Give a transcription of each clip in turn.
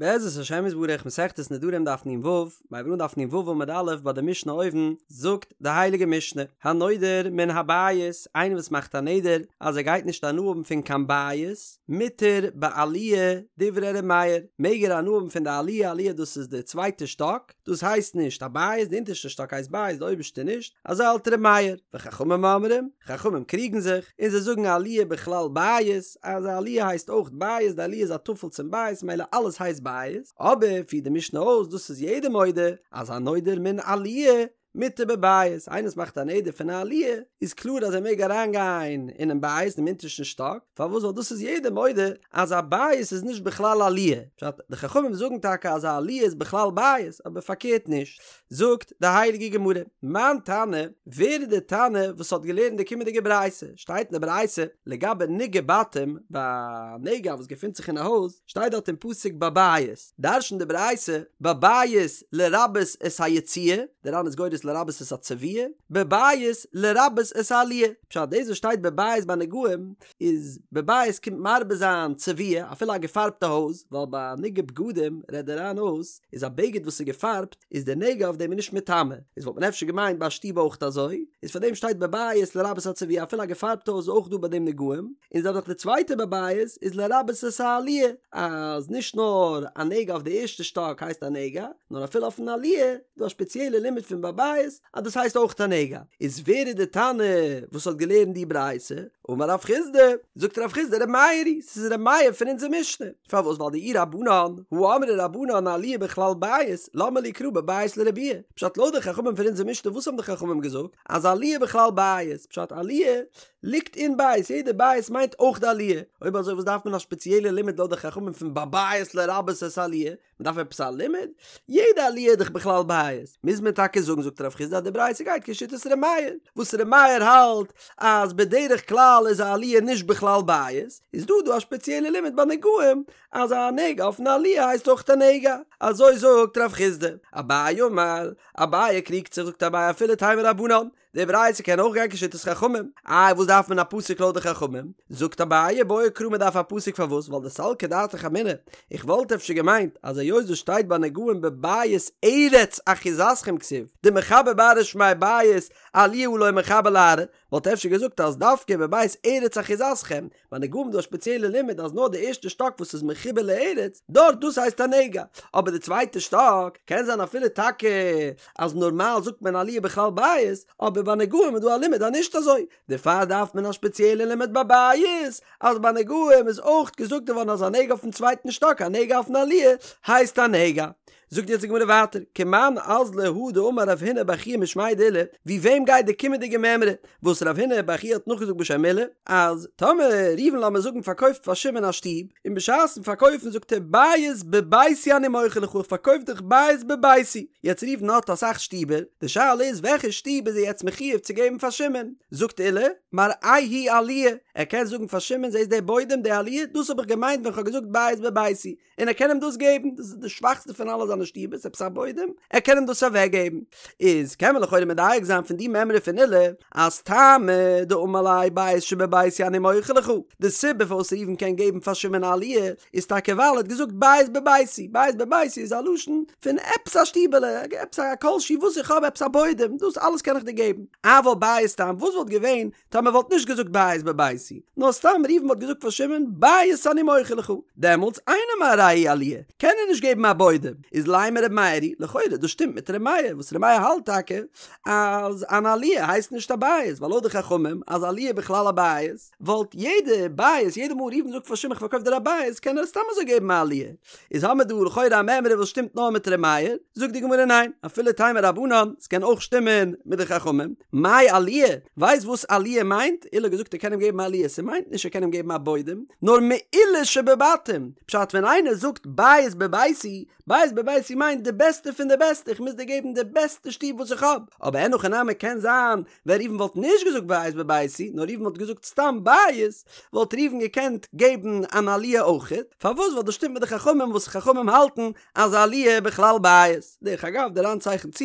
בעזרת השם יתברך מסכת נדרים דף נ"ו, מ'הייבט אן דף נ"ו עמוד א' ביי די משנה אויבן, זאגט די הייליגע משנה, הנודר מן הבית, איינער וואס מאכט א נדר אז ער גייט נישט הנאה האבן פון קיין בית, מותר בעליה דברי ר' מאיר, מעג ער הנאה האבן פון די עליה, עליה דאס איז די צווייטע שטאק, דאס הייסט נישט א בית, די אונטערשטע שטאק הייסט בית, די אויבערשטע נישט, אזוי האלט ר' מאיר, וחכמים אומרים, חכמים קריגן זיך, און זיי זאגן עליה בכלל בית, אז א עליה הייסט אויך בית, די עליה איז א טפל צום בית, ממילא אלעס הייסט בית, אבער פירט די משנה אויס, דאס איז יעדער מודה, אז הנודר מן עליה, מותר בבית, איינער וואס מאכט א נדר פון א עליה, איז קלאר אז ער מעג אריין גיין אינעם בית, דעם אונטערשטן שטאק, פארוואס ווייל דאס איז יעדער מודה אז א בית איז נישט בכלל עליה, פשט, די חכמים זאגן טאקע אז א עליה איז בכלל בית, אבער פארקערט נישט, זאגט די הייליגע גמרא, מאן תנא, ווער איז די תנא וואס האט געלערנט די קומענדיגע ברייתא, שטייט אין די ברייתא לגבי נגעי בתים, ביי א נגע וואס געפינט זיך אין א הויז, שטייט דארט אין פסוק בבית, דרש'נט די ברייתא, בבית לרבות את היציע, די ר"ן איז גורס לרבות את הצביעה, בבית לרבות את העליה, פשט דאס וואס שטייט בבית ביי נגעים איז בבית קומט מרבה זיין צביעה אפילו א געפארבטע הויז, ווייל ביי נגעי בגדים רעדט די ר"ן אויס איז א בגד וואס איז געפארבט איז די נגע אויף דעם איז נישט מטמא, איז וואלט מען אפשר געמיינט ביי א שטוב אויך אזוי, איז פאר דעם שטייט בבית לרבות הצביעה אפילו א געפארבטע הויז איז אויך דא ביי דעם נגעים, און זעלבע זאך די צווייטע בבית איז לרבות את העליה, אז נישט נאר א נגע אויף די ערשטע שטאק הייסט א נגע, נאר אפילו אויפן עליה איז דא א שפעציעלע לימוד פון בבית אז דאס הייסט אויך א נגע. איז ווער איז די תנא וואס האט געלערנט די ברייתא? אמר רב חסדא, זאגט רב חסדא ר' מאיר היא, ס'איז ר' מאיר פון אונזער משנה. פארוואס ווייל דאי רבנן, הא אמרי רבנן עליה בכלל בית, למה לי קרא בבית לרבויי? פשט לויט די חכמים פון אונזער משנה וואס האבן די חכמים געזאגט? אז עליה בכלל בית, פשט עליה ליגט אין בית, יעדע בית מיינט אויך די עליה, אויב אזוי וואס דארף מען א שפעציעלע לימוד לויט די חכמים פון בבית לרבות את העליה? מען דארף עפעס א לימוד? יעדע עליה איז דאך בכלל בית, מוז מען טאקע זאגן זאגט רב חסדא אז די ברייתא גייט כשיטת ר' מאיר, וואס ר' מאיר האלט אז בדרך כלל איז א עליה נישט בכלל בית, איז דא דא א שפעציעלע לימוד ביי נגעים אז א נגע אויפן עליה הייסט אויך א נגע, אזוי זאגט רב חסדא. אביי אמר, אביי קריגט זיך זאגט אביי אפילו תימא רבנן, די ברייתא קען אויך גיין כשיטת חכמים. איי וואס דארף מען א פסוק לויט די חכמים? זאגט אביי בעי קרא מען דארף א פסוק פארוואס ווייל דסלקא דעתך אמינא איך וואלט אפשר געמיינט אז היות דאס שטייט ביי נגעים בבית ארץ אחוזתכם כתיב דמחבר בארעא שמיה בית עליה הא לא מחבר לארעא וואלט אפשר געזאגט אז דווקא בבית ארץ אחוזתכם ביי נגעים דא א שפעציעלע לימוד אז נאר די ערשטע שטאק וואס איז מחובר לארץ, דארט דאס הייסט א נגע, אבער די צווייטע שטאק קען זיין אפילו טאקע אז נארמאל זאגט מען עליה בכלל בית, אבער ביי נגעים איז דא א לימוד אז נישט אזוי, דערפאר דארף מען א שפעציעלע לימוד ביי בית, אז ביי נגעים איז אויך געזאגט געווארן אז א נגע אויפן צווייטן שטאק א נגע אויפן עליה הייסט א נגע. זאגט יעצט די גמרא ווייטער, כמאן אזלא הא דאמר רב הונא בר חייא משמיה דעולא, ווי וועם גייט די קומענדיגע מימרא וואס רב הונא בר חייא האט נאכגעזאגט בשם עולא, אז טאמער ראובן לאמיר זאגן פארקויפט פאר שמעון א שטוב, און בשעת'ן פארקויפן זאגט ער בית בביתי אני מוכר לך איך פארקויף דיך בית בביתי, יעצט ראובן האט אסאך שטיבער, די שאלה איז וועלכע שטוב איז ער יעצט מחיוב צו געבן פאר שמעון, זאגט עולא, מראהו עליה, ער קען זאגן פאר שמעון זעסט די בוידעם די עליה, דאס האב איך געמיינט ווען כ'האב געזאגט בית בביתי, און ער קען אים דאס געבן, דאס איז די שוואכסטע פון אלע זיינע שטיבערס, עפעס א בוידעם, ער קען אים דאס אוועק געבן. איז קען מען לכאורה מדייק זיין פון די מימרא פון עולא, אז טעמא דאמר ליה בית שבביתי אני מוכר לך, די סיבה פארוואס ראובן קען געבן פאר שמעון א עליה, איז טאקע ווייל ער האט געזאגט בית בביתי, בית בביתי איז א לשון פון עפעס א שטיבעלע, עפעס א כל שהוא וואס איך האב, עפעס א בוידעם, דאס אלעס קען איך דיר געבן. אבל בית סתם, וואס וואלט געווען טאמער וואלט נישט געזאגט בית בביתי, נאר סתם ראובן וואלט געזאגט פאר שמעון בית אני מוכר לך, דעמאלטס אינו מראהו עליה, קען ער נישט געבן א בוידעם, איז לימא ר' מאיר היא, לכאורה דאס שטימט מיט ר' מאיר, וואס ר' מאיר האלט טאקע אז אן עליה הייסט נישט א בית, ווייל לויט די חכמים אז עליה בכלל א בית, וואלט יעדע בית, יעדע מאל ראובן זאגט פאר שמעון כ'פארקויף דיר א בית, קען ער סתם אזוי געבן א עליה. איז האמיר דא לכאורה א מימרא וואס שטימט נאר מיט ר' מאיר, זאגט די גמרא ניין, אפילו תימא רבנן, ס'קען אויך שטימען מיט די חכמים, מאי עליה, ווייסט וואס עליה מיינט? עולא האט געזאגט ער קען אים געבן א עליה, ס'מיינט נישט ער קען אים געבן א בוידעם, נאר מעילה שבבתים, פשט ווען איינער זאגט בית בביתי, בית בביתי בביתי מיינט די בעסטע פון די בעסטע, איך מוז דיר געבן די בעסטע שטוב וואס איך האב, אבער אין הכי נמי קען זיין ווען ראובן וואלט נישט געזאגט בית בביתי נאר ראובן וואלט געזאגט סתם בית, וואלט ראובן געקענט געבן אן עליה אויכעט, פארוואס ווייל דאס שטימט מיט די חכמים וואס חכמים האלטן אז עליה בכלל בית. דרך אגב דער ר"ן צייכנט צו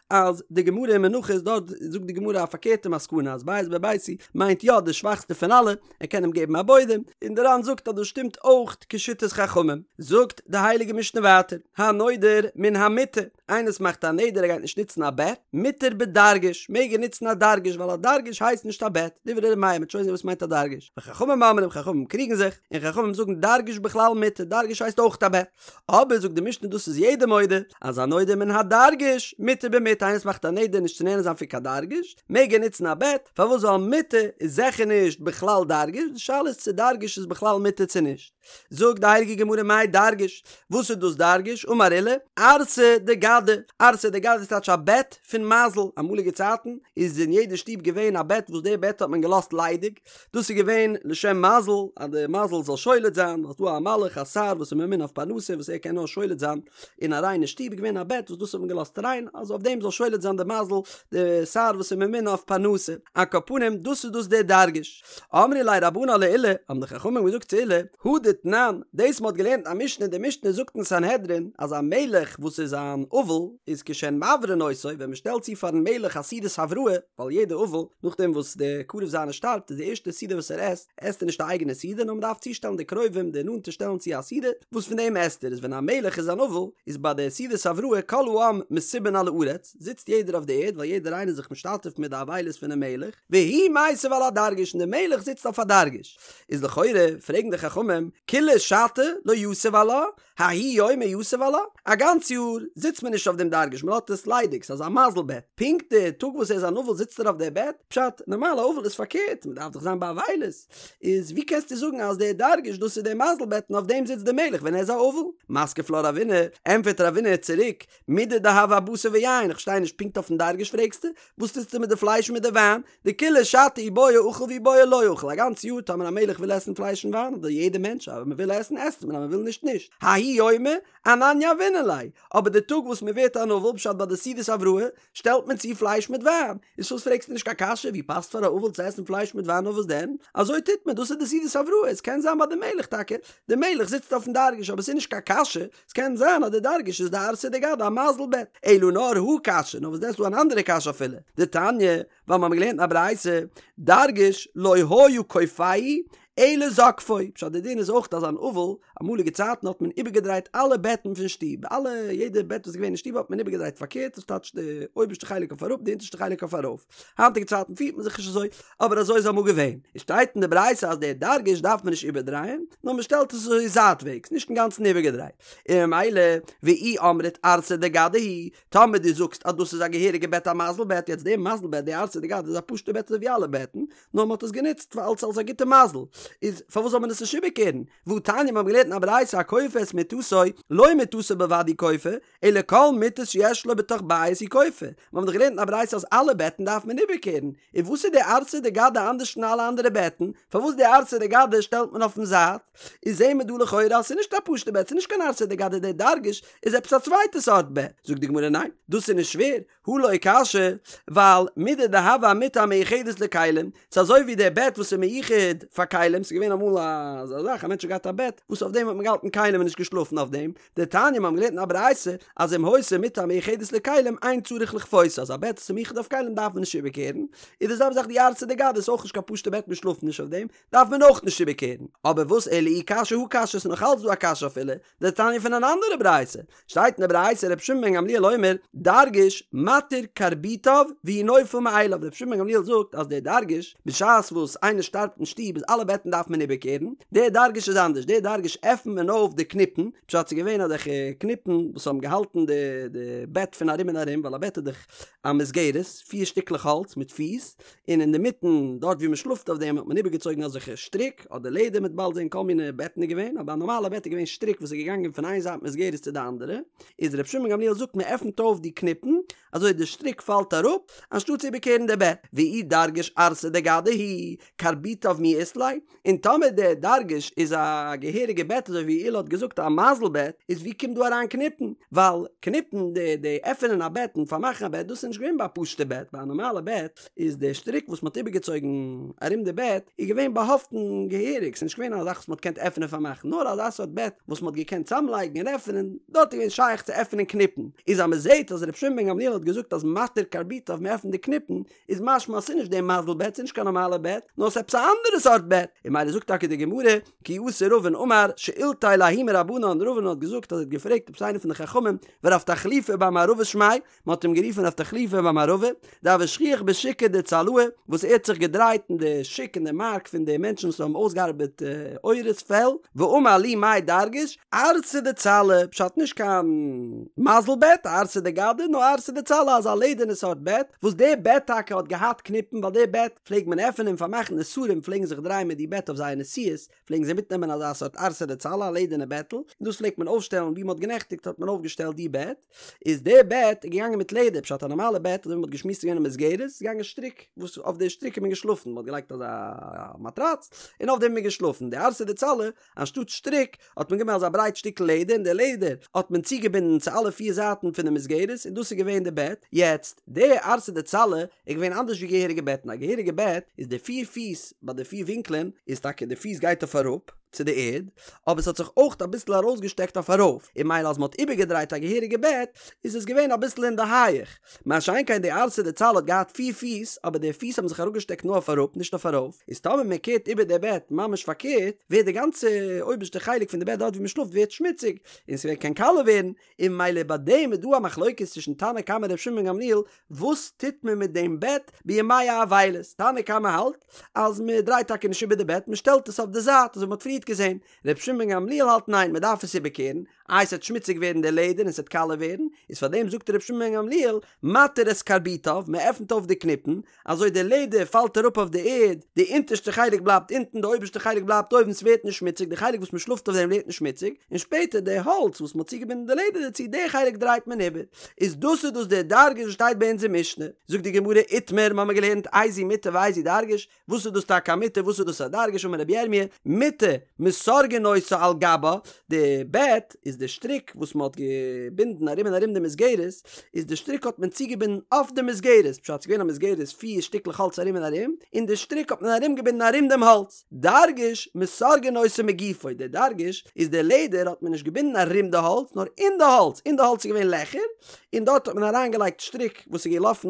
אז די גמרא אין מנחות דארט זאגט די גמרא א פארקערטע מסקנא אז בית בביתי מיינט יא די שוואכסטע פון אלע, ער קען אים געבן א בוידעם, און דער ר"ן זאגט אז דאס שטימט אויך כשיטת חכמים. זאגט די הייליגע משנה ווייטער, הנודר מן המיטה, איינער וואס מאכט א נדר ער גייט נישט נוצן א בעט, מותר בדרגש, מעג ער נוצן א דרגש ווייל א דרגש הייסט נישט א בעט, דברי ר' מאיר, מ'וועט שוין זען וואס מיינט א דרגש, וחכמים אומרים חכמים קריגן זיך, און חכמים זאגן דרגש בכלל מיטה, דרגש הייסט אויך א בעט. אבער זאגט די משנה דאס איז יעדער מודה אז הנודר מן הדרגש מותר במיטה איינער וואס מאכט א נדר נישט צו נהנה זיין פון קיין דרגש מעג ער נוצן א בעט פארוואס ווייל מיטה איז זיכער נישט בכלל דרגש די שאלה איז צו דרגש איז בכלל מיטה צו נישט זאגט די הייליגע גמרא מאי דרגש וואס איז דאס דרגש אמר עולא ערסא דגדא ערסא דגדא איז טייטש א בעט פון מזל אמאליגע צייטן איז אין יעדע שטוב געווען א בעט וואס די בעט האט מען געלאזט ליידיג דאס איז געווען לשם מזל, אז די מזל זאל שולט זיין, ווייל ס'דא א מלאך א שר וואס איז ממונה אויף פרנסה וואס ער קען נאר שולט זיין אין א ריינע שטוב, איז געווען א בעט וואס דאס האט מען געלאזט ריין, אז אויף דעם זאל שולט זיין די מזל, די שר וואס איז ממונה אויף פרנסה. על כל פנים, דאס איז דאס דער דרגש. אמרי ליה רבנן לעולא, האבן די חכמים געזאגט צו עולא, הא דתנן, דאס מ'האט געלערנט א משנה, די משנה זאגט אין סנהדרין, אז א מלך וואס איז אן אבל, איז כשהן מברין אותו, ווען מ'שטעלט צו פארן מלך א סעודת הבראה, ווייל יעדע אבל, נאכדעם וואס דער קרוב זיינער שטארבט איז די ערשטע סעודה וואס ער עסט, עסט ער נישט א אייגענע סעודה נאר מען דארף צושטעלן די קרובים די נאנטע שטעלן צו א סעודה וואס פון דעם עסט ער, איז ווען א מלך איז אן אבל איז ביי די סעודת הבראה כל העם מסובין על הארץ, זיצט יעדער אויף די ערד ווייל יעדער איינער איז זיך משתתף מיט די אבילות פונעם מלך, והוא מיסב על הדרגש און דער מלך זיצט אויף א דרגש. איז לכאורה פרעגן די חכמים, כולה שתא לא יתיב עלה, ההוא יומא יתיב עלה? א גאנץ יאר זיצט מען נישט אויף דעם דרגש מען לאזט עס ליידיג ס'איז אזא מזל בעט, פונקט די טאג וואס ער איז אן אבל זיצט ער אויף דער בעט? פשט, נארמאל א אבל איז פארקערט מען דארף דאך זיין באבילות, איז ווי קענסטו זאגן אז דער דרגש דאס איז דער מזל בעט און אויף דעם זיצט דער מלך ווען ער איז א אבל? מתקיף לה רבינא, ענטפערט רבינא צוריק, מידי דהוה אבשר ויין, איך פארשטיי נישט פונקט אויפן דרגש פרעגסטו? וואס טוסטו מיט די פלייש און מיט די וויין? דכולה שתא אי בעי אכיל ואי בעי לא אכיל, א גאנץ יאר טאמער א מלך וויל עסן פלייש און וויין, אדער יעדער מענטש, אז מען וויל עסן עסט מען אז מען וויל נישט נישט, ההוא יומא אנן יהבינן ליה, אבער די טאג וואס מען ווערט אן אבל פשט ביי די סעודת הבראה, שטעלט מען צו פלייש מיט וויין, איז פארוואס פרעגסטו נישט קיין קשיא, ווי פאסט פאר א אבל צו עסן פלייש מיט וויין נאר וואס דען, אזוי טוט מען, דאס איז די סעודת הבראה, עס קען זיין ביי די מלך טאקע, די מלך זיצט אויפן דרגש אבער עס איז נישט קיין קשיא, עס קען זיין אז די דרגש איז די ערסא דגדא א מזל בעט, אלא נאר הא קשיא, נאר וואס דען ס'איז דא אן אנדערע קשיא אפילו, דתניא, ווייל מיר האבן געלערנט אין א ברייתא, דרגש לא היה כופהו אלא זוקפו, פשט די דין איז אויך אז אן אבל, אמאליגע צייטן האט מען איבערגעדרייט אלע בעטן פון שטוב, אלע יעדע בעט וואס איז געווען אין שטוב האט מען איבערגעדרייט פארקערט, דאס טייטש די אויבערשטע חלק אויף אראפ די אונטערשטע חלק אויף ארויף, היינטיגע צייטן פירט מען זיך נישט אזוי, אבער אזוי איז אמאל געווען, עס שטייט אין די ברייתא אז דער דרגש דארף מען נישט איבערדרייען, נאר מען שטעלט עס אזוי זייטוועגס, נישט אינגאנצן איבערגעדרייט, און ממילא ואי אמרת ערסא דגדא הוא, טאמער דו זאגסט אז דאס איז א געהעריגע בעט א מזל בעט, יעצט די מזל בעט די ערסא דגדא איז א פשוטע בעט אזוי ווי אלע בעטן, נאר מען האט עס גענוצט פאר אלס אלס א גוטע מזל, איז פארוואס זאל מען עס נישט איבערקערן? והא תניא מיר האבן געלערנט אין א ברייתא הכופה את מיטתו, לא מיטתו בלבד הוא כופה, אלא כל מיטות שיש לו בתוך בית הוא כופה, מיר האבן דאך געלערנט אין א ברייתא אז אלע בעטן דארף מען איבערקערן, איז וואס איז די ערסא דגדא אנדערש פון אלע אנדערע בעטן? פארוואס די ערסא דגדא שטעלט מען אויפן זייט? איז זעהן מיר דא לכאורה אז ס'איז נישט א פשוטע בעט, ס'איז נישט קיין ערסא דגדא דער דרגש איז עפעס א צווייטע סארט בעט. זאגט די גמרא ניין, דאס איז נישט שווער, הא לא קשיא, ווייל מידי דהוה אמיטה המיוחדת לכלים, ס'איז אזוי ווי דער בעט וואס איז מיוחד פאר כלים, ס'איז געווען אמאל אזא זאך, א מענטש האט געהאט א בעט וואס אויף דעם האט מען געהאלטן כלים און נישט געשלאפן אויף דעם, דתניא מיר האבן געלערנט אין א ברייתא אז אם היתה מיטה המיוחדת לכלים אין צריך לכפותה אז א בעט וואס איז מיוחד אויף כלים דארף מען נישט איבערקערן, איז די זעלבע זאך די ערסא דגדא איז אויך נישט קיין פשוטע בעט מען שלאפט נישט אויף דעם, דארף מען אויך נישט איבערקערן. אבער וואס אלא אי קשיא הא קשיא ס'איז נאך אלץ דא א קשיא אפילו דתניא פון אן אנדערע ברייתא שטייט אין די ברייתא רבי שמעון בן גמליאל אומר דרגש מתיר קרביטיו והוא נופל מאליו רבי שמעון בן גמליאל זאגט אז דער דרגש בשעת וואס איינער שטארבט אין שטוב איז אלע בעטן דארף מען איבערקערן דער דרגש איז אנדערש דער דרגש עפנט מען אויף די קניפן פשט ס'איז געווען אזעלכע קניפן וואס האבן געהאלטן די די בעט פון ארום און ארום ווייל א בעט איז דאך א מסגרת פיר שטיקלעך האלץ מיט פיס און אינדערמיטן דארט ווי מען שלאפט אויף דעם האט מען איבערגעצויגן אזעלכע שטריק אדער לעדער מ'וועט באלד זען כל מיני בעטן איז געווען אבער א נארמאלע בעט איז געווען שטריק וואס איז געגאנגען פון איין זייט מסגרת צו די אנדערע איז רבי שמעון גמליאל זאגט מען עפנט אויף די קניפן אזוי די שטריק פאלט אראפ אנשטאט צו איבערקערן די בעט ואי דרגש ערסא דגדא הוא קרביטיו מי אית ליה. און טאמער דער דרגש איז א געהעריגע בעט אזוי ווי עולא האט געזאגט א מזל בעט, איז ווי קומט דא אריין קניפן? ווייל קניפן די די עפענען א בעט און פארמאכן א בעט דאס איז נישט געווען ביי א פשוטע בעט, ביי א נארמאלע בעט איז די שטריק וואס מ'האט איבערגעצויגן ארום די בעט איז געווען באהאפטן געהעריג, ס'איז נישט געווען א זאך וואס מ'האט געקענט עפענען און פארמאכן, נאר אזא סארט בעט וואס מ'האט געקענט צאמלייגן און עפענען, דארט איז געווען שייך צו עפענען קניפן. איז אז מ'זעט אז ר' שמעון בן גמליאל האט געזאגט אז מתיר קרביטיו מ'עפנט די קניפן, איז משמע אז ס'איז נישט די מזל בעט, ס'איז נישט קיין נארמאלע בעט, נאר ס'איז עפעס א אנדערע סארט בעט. און ממילא זאגט טאקע די גמרא, כי אתא רבין אמר, שאילתיה לההוא מרבנן, רבין האט געזאגט אז ער האט געפרעגט עפעס איינער פון די חכמים, ורב תחליפא בר מערבא שמיה, מען האט אים גערופן רב תחליפא בר מערבא, דהוה שכיח בשוקא דצלעי, וואס ער האט זיך געדרייט אין די שוק אין די מארק פון די מענטשן וואס האבן אויסגעארבעט עורות פעל, ואמר לי מאי דרגש, ערסא דצלא, פשט נישט קיין מזל בעט, ערסא דגדא, נאר ערסא דצלא אזא לעדערנע סארט בעט, וואס די בעט טאקע האט געהאט קניפן ווייל די בעט פלעגט מען עפענען און פארמאכן די שרים פלעגן זיך דרייען מיט די בעט אויף זייער נסיעות, פלעגן זיי מיטנעמען אזא סארט ערסא דצלא א לעדערנע בעטל, און דאס פלעגט מען אויפשטעלן ווי מען האט גענעכטיגט האט מען אויפגעשטעלט די בעט, איז די בעט איז געגאנגען מיט לעדער, פשט א נארמאלע בעט אזוי ווי מען האט געשמועסט איז געווען א מסגרת, איז געגאנגען שטריק, וואס אויף די שטריק איז מען געשלאפן, מען האט געלייגט אזא מאטראץ, און אויף דעם איז מען געשלאפן, די ערסא דצלא, אנשטאט שטריק, האט מען גענומען אזא ברייט שטיקל לעדער, און די לעדער האט מען צוגעבינדן צו אלע פיר זייטן פון די מסגרת, און דאס איז געווען די בעט, יעצט, די ערסא דצלא איז געווען אנדערש ווי געהעריגע בעטן, א געהעריגע בעט איז די פיר פיס ביי די פיר ווינקלען, איז טאקע די פיס גייט אויף אראפ צו די ערד, אבער ס'האט זיך אויך אביסל ארויסגעשטעקט אויף ארויף, און ממילא אז מ'האט איבערגעדרייט א געהעריגע בעט, איז עס געווען אביסל אין די הייעך, מה שאין כן די ערסא דצלא האט געהאט פיר פיס, אבער די פיס האבן זיך אראפגעשטעקט נאר אויף אראפ, נישט אויף ארויף, איז טאמער מען קערט איבער די בעט ממש פארקערט, ווערט די גאנצע אויבערשטע חלק פון די בעט דארט ווי מען שלאפט ווערט שמוציג, און ס'קען קאלע ווערן, און ממילא ביי דעם איז דא א מחלוקת צווישן תנא קמא און ר' שמעון בן גמליאל, וואס טוט מען מיט דעם בעט בימי האבילות, תנא קמא האלט אז מען דרייט טאקע נישט איבער די בעט, מען שטעלט עס אויף די זייט אזוי ווי מען האט פריערט געזען, ר' שמעון בן גמליאל האלט ניין מען דארף עס איבערקערן, איי ס'עט שמוציג ווערן די לעדער און ס'עט קאלע ווערן, איז פאר דעם זאגט ר' שמעון בן גמליאל, מתיר את קרביטיו, מען עפנט אויף די קניפן, אזוי די לעדער פאלט אראפ אויף די ערד, די אונטערשטע חלק בלייבט אונטן די אויבערשטע חלק בלייבט אויבן ס'ווערט נישט שמוציג, די חלק וואס מען שלאפט אויף דעם ווערט נישט שמוציג, און שפעטער די האלץ וואס מען האט צוגעבינדן די לעדער דערצו די חלק דרייט מען איבער, איז דאס איז דאס דער דרגש וואס שטייט ביי אונזער משנה, זאגט די גמרא איתמר, מ'האמיר געלערנט איזו מיטה ואיזו דרגש, וואס איז דאס טאקע א מיטה וואס איז דאס א דרגש אמר רבי ירמי' מיטה מסרגין אותה על גבה, די בעט איז די שטריק וואס מען האט געבינדן ארום און ארום די מסגרת, איז די שטריק האט מען צוגעבינדן אויף די מסגרת, פשט ס'איז געווען א מסגרת פיר שטיקלעך האלץ ארום און ארום, און די שטריק האט מען ארום געבינדן ארום דעם האלץ, דרגש מסרגין אותו מגופו, די דרגש איז די לעדער האט מען נישט געבינדן ארום די האלץ נאר אין די האלץ, אין די האלץ איז געווען לעכער, און דארט האט מען אריינגעלייגט שטריק וואס איז געלאפן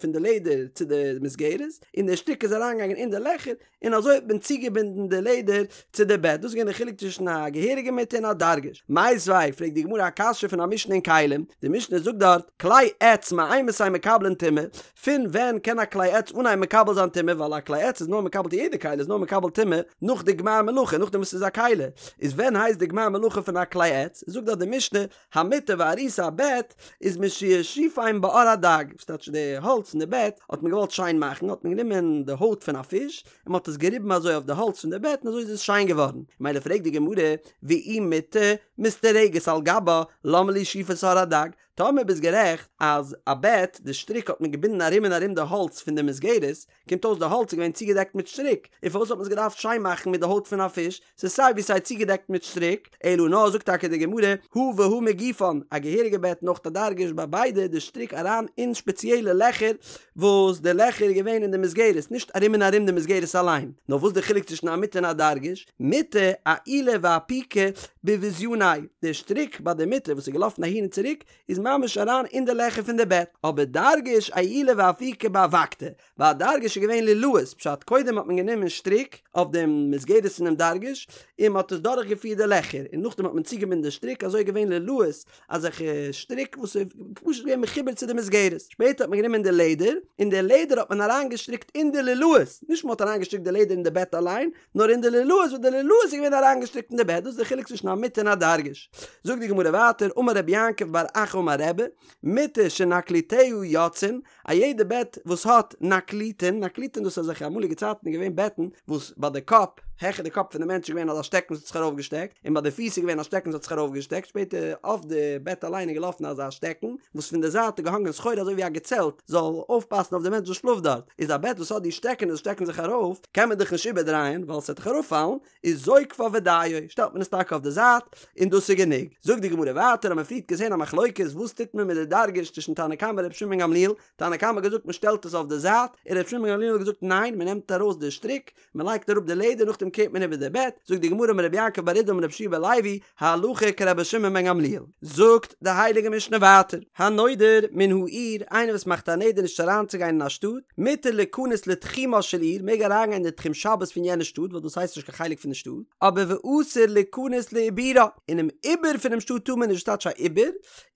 פון די לעדער צו די מסגרת, און די שטריק איז אריינגעגאנגען אין די לעכער, און אזוי האט מען צוגעבינדן די לעדער צו די בעט, דאס איז געווען די חילוק צווישן א געהעריגע מיטה און א דרגש. מיתיבי, פרעגט די גמרא א קשיא פון א משנה אין כלים, די משנה זאגט דארט, כלי עץ מאימתי מקבלין טומאה, פון ווען קען א כלי עץ אנהייבן מקבל זיין טומאה, ווייל א כלי עץ איז נאר מקבל יעדע כלי איז נאר מקבל טומאה נאך די גמר מלאכה, נאכדעם וואס ס'איז א כלי, איז ווען הייסט די גמר מלאכה פון א כלי עץ, זאגט דארט די משנה, המיטה והעריסה א בעט איז משישיפם בעור הדג, וואס טייטש די האלץ פון די בעט האט מען געוואלט שיין מאכן האט מען גענומען די הויט פון א פיש און מען האט עס געריבן אזוי אויף די האלץ פון די בעט און אזוי איז עס שיין געווארן, ממילא פרעגט די גמרא ואי מיטה מסתרגת על גבה למה לי שיפת עור הדג, טאמער ביסט גערעכט אז א בעט די שטריק האט מען געבינדן ארום און ארום די האלץ פון די מסגרת, קומט אויס די האלץ איז געווען צוגעדעקט מיט שטריק, און פארוואס האט מען עס געדארפט שיין מאכן מיט די הויט פון א פיש, ס'איז סיי ווי סיי צוגעדעקט מיט שטריק, אלא נאר זאגט טאקע די גמרא, הא והא מגופן, א געהעריגע בעט און אויך א דרגש ביי ביידע די שטריק אריין אין שפעציעלע לעכער וואס די לעכער איז געווען אין די מסגרת נישט ארום און ארום די מסגרת אליין, נאר וואס די חילוק צווישן א מיטה און א דרגש, מיטה אעולי ואפיקי בבזיוני, די שטריק ביי די מיטה וואס איז געלאפן אהין און צוריק איז ממש אריין אין די לעכער פון די בעט, אבער דרגש אעולי ואפיקי באבקתא, ביי א דרגש איז געווען לולאות, פשט קודם האט מען גענומען שטריק אויף דעם מסגרת פונעם דרגש און מען האט עס דורך געפירט די לעכער, און נאכדעם האט מען צוגעבינדן די שטריק אזוי איז געווען לולאות אזעלכע שטריק וואס איז פשוט געווען מחובר צו די מסגרת, שפעטער האט מען גענומען די לעדער, און די לעדער האט מען אריין געשטריקט אין די לולאות, נישט מען האט אריין געשטריקט די לעדער אין די בעט אליין, נאר אין די לולאות וואס די לולאות איז געווען אריינגעשטריקט אין די בעט, דאס איז די חילוק צווישן א מיטה און א דרגש. זאגט די גמרא ווייטער, אמר רבי יעקב בר אחא אמר רבי, מיטה שנקליטיה יוצאין, א יעדע בעט וואס האט נקליטין, נקליטין דאס איז אזעלכע אמאליגע צייטן איז געווען בעטן וואס ביי די קאפ העכער די קאפ פון די מענטש איז געווען אזא שטעקן וואס האט זיך ארויפגעשטעקט, און ביי די פיס איז געווען א שטעקן וואס האט זיך ארויפגעשטעקט, שפעטער אויף די בעט אליין איז געלאפן אזא שטעקן וואס פון די זייט איז געהאנגען סחורה אזוי ווי א געצעלט זאל אויפפאסן אויף די מענטש וואס שלאפט דארט, איז א בעט וואס האט די שטעקענעס וואס שטעקן זיך ארויף קען מען דאך נישט איבערדרייען ווייל ס'וועט דאך אראפפאלן, איז זוקפה ודיו, שטעלט מען עס טאקע אויף די זייט און דאס איז גענוג. זאגט די גמרא ווייטער האט מען פריערט געזען א מחלוקת וואס טוט מען מיט די דרגש צווישן תנא קמא און ר' שמעון בן גמליאל, תנא קמא האט געזאגט מען שטעלט עס אויף די זייט, און ר' שמעון בן גמליאל האט געזאגט ניין מען נעמט ארויס די שטריק, מען לייגט אראפ די לעדער נאכדעם קערט מען איבער די בעט, זאגט די גמרא אמר רבי יעקב בר אידי אמר רבי יהושע בן לוי, הלכה כרבי שמעון בן גמליאל. זאגט די הייליגע משנה ווייטער, הנודר מן העיר, איינער וואס מאכט א נדר נישט אריינצוגיין אין א שטאט, מותר ליכנס לתחומה של עיר, מעג אריינגיין אין די תחום שבת פון יענע שטאט, ווייל דאס הייסט נישט קיין חלק פון די שטאט, אבער ואסור ליכנס לעיבורה, אינעם עיבור פונעם שטאט טאר מען נישט, וואס טייטש א עיבור?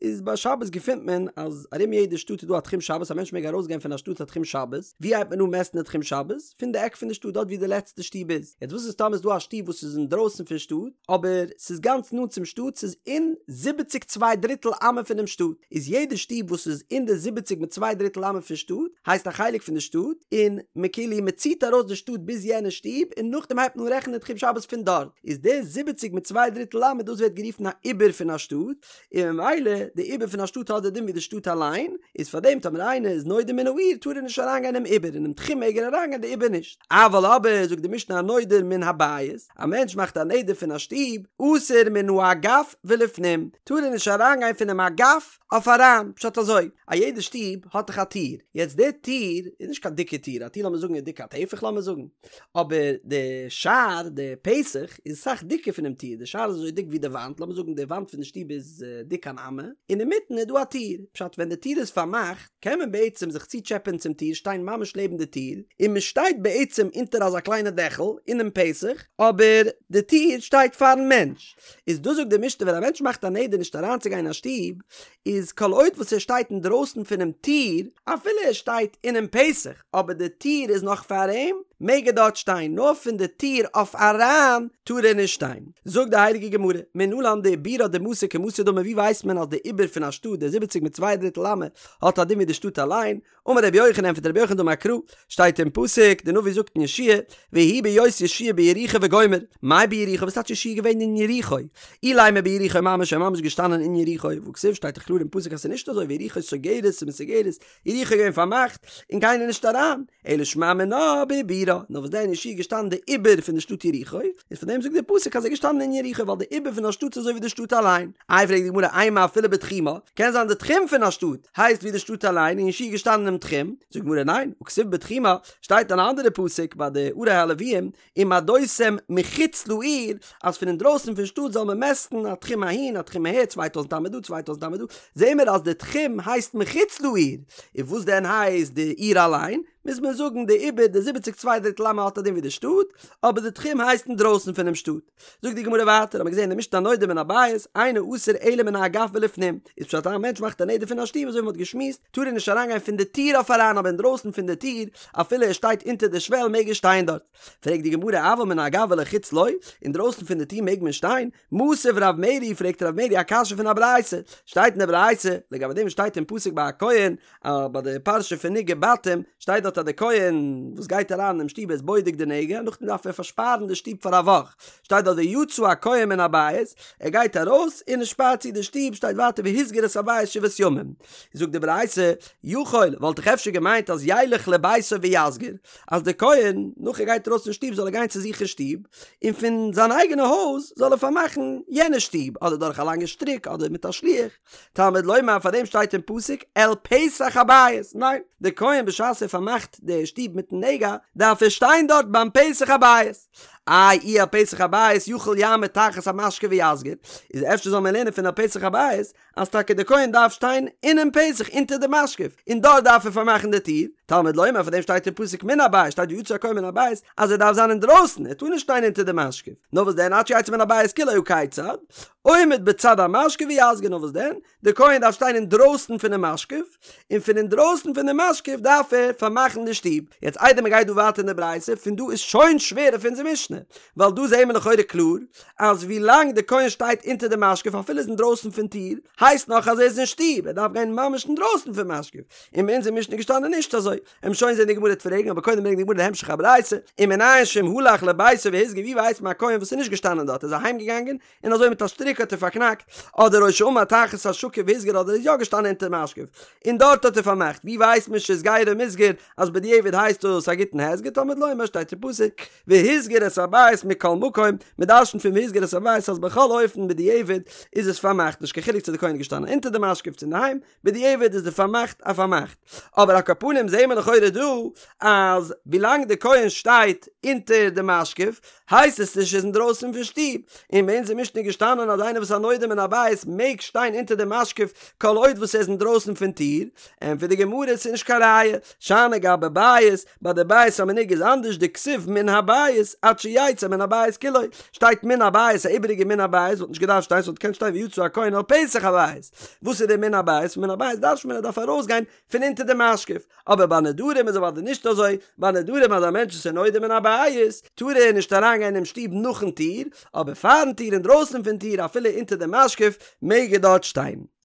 איז ביי שבת געפינט מען אז ארום יעדע שטאט איז דא א תחום שבת א מענטש מעג ארויסגיין פון א שטאט א תחום שבת, ווי הייבט מען אן מעסטן די תחום שבת? פון די עק פון די שטאט דארט ווי די לעצטע שטוב איז, יעצט וואס איז טאמער איז דא א שטוב וואס איז אינדרויסן פון שטאט אבער ס'איז גאנץ נאנט צום שטאט ס'איז אין זיבעציג צוויי דריטל אמה פונעם שטאט, איז יעדע שטוב וואס איז אין די זיבעציג מיט צוויי דריטל אמה פון שטאט הייסט א חלק פון די שטאט, און מ'כאילו מ'ציט ארויס די שטאט ביז יענע שטוב און נאכדעם הייבט מען אן רעכענען די תחום שבת פון דארט, איז די זיבעציג מיט צוויי דריטל אמה דאס ווערט גערופן א עיבור פון א שטאט, און ממילא די עיבור פון א שטאט האט די דין ווי די שטאט אליין, איז פאר דעם טאמער איינער איז נודר מן העיר טאר ער נישט אריינגיין אינעם עיבור, אינעם תחום מעג ער אריינגיין די עיבור נישט. אבל אבער זאגט די משנה הנודר מן הבית, א מענטש מאכט א נדר פון א שטוב, אסור מן האגף ולפנים, טאר ער נישט אריינגיין פונעם אגף אויף אריין, פשט אזוי, א יעדע שטוב האט דאך א טיר, יעצט די טיר איז נישט קיין דיקע טיר, א טיר לאמיר זאגן איז דיק א טפח לאמיר זאגן, אבער די שער, די פתח, איז אסאך דיקער פונעם טיר, די שער איז אזוי דיק ווי די וואנט, לאמיר זאגן די וואנט פון די שטוב איז דיק אן אמה, און אינמיטן איז דא א טיר, פשט ווען די טיר איז פארמאכט קען מען בעצם זיך צוטשעפען צום טיר, שטיין ממש לעבן די טיר, און מען שטייט בעצם אונטער אזא קליינע דעכל אינעם פתח, אבער די טיר שטייט פארן מענטש. איז דאס זאגט די משנה ווען א מענטש מאכט א נדר נישט אריינצוגיין אין א שטוב, איז כל עוד וואס ער שטייט אינדרויסן פונעם טיר, אפילו ער שטייט אינעם פתח, אבער די טיר איז נאך פאר אים, מעג ער דארט שטיין, נאר פון די טיר אויף אריין טאר ער נישט שטיין. זאגט די הייליגע גמרא, מנלן דעיבורה דמתא כמתא דמי ווי ווייסט מען אז די עיבור פון א שטאט, די זיבעציג מיט צוויי דריטל אמה, האט א דין ווי די שטאט אליין, אמר רבי יוחנן ענטפערט רבי יוחנן דאמר קרא, שטייט אין פסוק, די נביא זאגט אין יהושע ויהי בהיות יהושע ביריחו וגומר, מאי ביריחו וואס טייטש יהושע געווען אין יריחו? אילימא ביריחו ממש ער איז ממש געשטאנען אין יריחו, והכתיב שטייט דאך קלאר אין פסוק אז ס'איז נישט אזוי ויריחו סוגרת ומסוגרת, יריחו איז געווען פארמאכט און קיינער נישט אריין, אלא שמע מינה בעיבורה, נאר וואס דען יהושע איז געשטאנען די עיבור פון די שטאט יריחו, איז פון דעם זאגט דער פסוק אז ער איז געשטאנען אין יריחו ווייל די עיבור פון א שטאט איז אזוי ווי די שטאט אליין. איי פרעגט די גמרא אימא אפילו בתחומה, קען זיין די תחום פון א שטאט הייסט ווי די שטאט אליין און יהושע איז געשטאנען אינעם תחום, זאגט די גמרא ניין, הכתיב בתחומה, שטייט אן אנדערע פסוק ביי די ערי הלוויים, ומדותם מחוץ לעיר, אז פון אינדרויסן פון שטאט זאל מען מעסטן א תחום אהין א תחום אהער צוויי טויזנט אמה דא צוויי טויזנט אמה דא, זעהן מיר אז די תחום הייסט מחוץ לעיר, און וואס דען הייסט די עיר אליין? מוז מען זאגן די עיבור די זיבעציג צוויי דריטל אמה האט א דין ווי די שטאט, אבער די תחום הייסט אינדרויסן פונעם שטאט. זאגט די גמרא ווייטער, האט מען געזען אין די משנה הנודר מן הבית, אינו אסור אלא מן האגף ולפנים, איז פשט אז א מענטש מאכט א נדר פון א שטוב אזוי ווי מען האט געשמועסט, טאר ער נישט אריינגיין פון די טיר אויף אריין אבער אינדרויסן פון די טיר, אפילו ער שטייט אונטער די שוועל מעג ער שטיין דארט. פרעגט די גמרא אבל מן האגף ולחוץ לא, אינדרויסן פון די טיר מעג מען שטיין? מתיב רב מרי פרעגט רב מרי א קשיא פון א ברייתא, שטייט אין די ברייתא, לגבי דעם שטייט אין פסוק ביי א כהן, אז ביי די פרשה פון נגעי בתים, שטייט דארט אז די כהן וואס גייט אריין אינעם שטוב איז בודק די נגע, נאכדעם דארף ער פארשפארן די שטוב פאר א וואך, שטייט דארט ויצא הכהן מן הבית, ער גייט ארויס און ער שפארט צו די שטוב, שטייט ווייטער והסגיר את הבית שבעת ימים. זאגט די ברייתא, יכול, וואלט איך אפשר געמיינט אז ילך לביתו ויסגיר, אז די כהן נאך ער גייט ארויס פון שטוב זאל ער גיין צו זיך אין שטוב, און פון זיין אייגענע הויז זאל ער פארמאכן יענע שטוב, אדער דורך א לאנגע שטריק אדער מיט א שליח. תלמוד לומר פאר דעם שטייט אין פסוק אל פתח הבית, ניין, די כהן בשעת ער פארמאכט די שטוב מיטן נגע דארף ער שטיין דארט ביים פתח הבית, איי אי אל פתח הבית יכול יעמוד תחת המשקוף ויסגיר, איז אפשר זאל מען לערנען פון אל פתח הבית אז טאקע די כהן דארף שטיין אינעם פתח אונטער די משקוף און דארט דארף ער פארמאכן די טיר, תלמוד לומר פאר דעם שטייט אין פסוק מן הבית שטייט ויצא הכהן מן הבית אז ער דארף זיין אינדרויסן ער טאר נישט שטיין אונטער די משקוף, נאר וואס דען עד שיצא מן הבית כולו הא כיצד, עומד בצד המשקוף ויסגיר נאר וואס דען די כהן דארף שטיין אינדרויסן פונעם משקוף און פון אינדרויסן פון די משקוף דארף ער פארמאכן די שטוב, יעצט איידער מען גייט דא ווייטער אין די ברייתא פון דא איז שוין שווער אויף אונזער משנה. ווייל דא זעהן מיר לכאורה קלאר אז ווי לאנג די כהן שטייט אונטער די משקוף אפילו איז אינדרויסן פון טיר הייסט נאך אז ער איז אין שטוב ער דארף גיין ממש אינדרויסן פון משקוף און ביי אונזער משנה איז געשטאנען נישט אזוי עמיר שוין זעהן די גמרא וועט פרעגן אבער קודם ברענגט די גמרא די המשך הברייתא ומנין שאם הלך לביתו והסגיר ווי ווייסט מען א כהן וואס איז נישט געשטאנען דארט איז אהיים געגאנגען און אזוי מיט א שטריק האט ער פארקנאקט, אדער או שעמד תחת השקוף והסגיר אדער איז יא געשטאנען אונטער משקוף און דארט האט ער פארמאכט, ווי ווייסט מען שהסגירו מוסגר אז בדיעבד הייסט דאס א גוטן הסגר תלמוד לומר שטייט אין פסוק והסגיר את הבית מכל מקום, מען דרשנ'ט פון והסגיר את הבית אז בכל אופן בדיעבד איז עס פארמאכט נישט קיין חילוק צו די כהן איז געשטאנען אונטער די משקוף צו אינדערהיים, בדיעבד איז די פארמאכט א פארמאכט. אבער על כל פנים זעהן מיר לכאורה דא אז ווילאנג די כהן שטייט אונטער די משקוף הייסט עס נישט ער איז אינדרויסן פון שטוב, און ביי אונז אין משנה איז געשטאנען אז איינער וואס איז א נודר מן הבית מעג שטיין אונטער די משקוף כל עוד וואס ער איז אינדרויסן פון טיר, ענטפערט די גמרא ס'איז נישט קיין ראיה, שאני גבי בית, ביי די בית המנוגע איז אנדערש דכתיב מן הבית עד שיצא מן הבית כולו, שטייט מן הבית א איבעריגע מן הבית וואלט נישט געדארפט שטיין ס'וואלט געקענט שטיין ויצא הכהן אל פתח הבית, וואס איז די מן הבית? פון מן הבית דרש'נט מען ער דארף ארויסגיין פון אונטער די משקוף, אבער ביי נדרים איז אוודאי נישט אזוי, ביי נדרים אז א מענטש איז נודר מן הבית טאר ער נישט אריינגיין אינעם שטוב נאכן טיר, אבער פארן טיר אינדרויסן פון טיר אפילו אונטער די משקוף מעג ער דארט שטיין.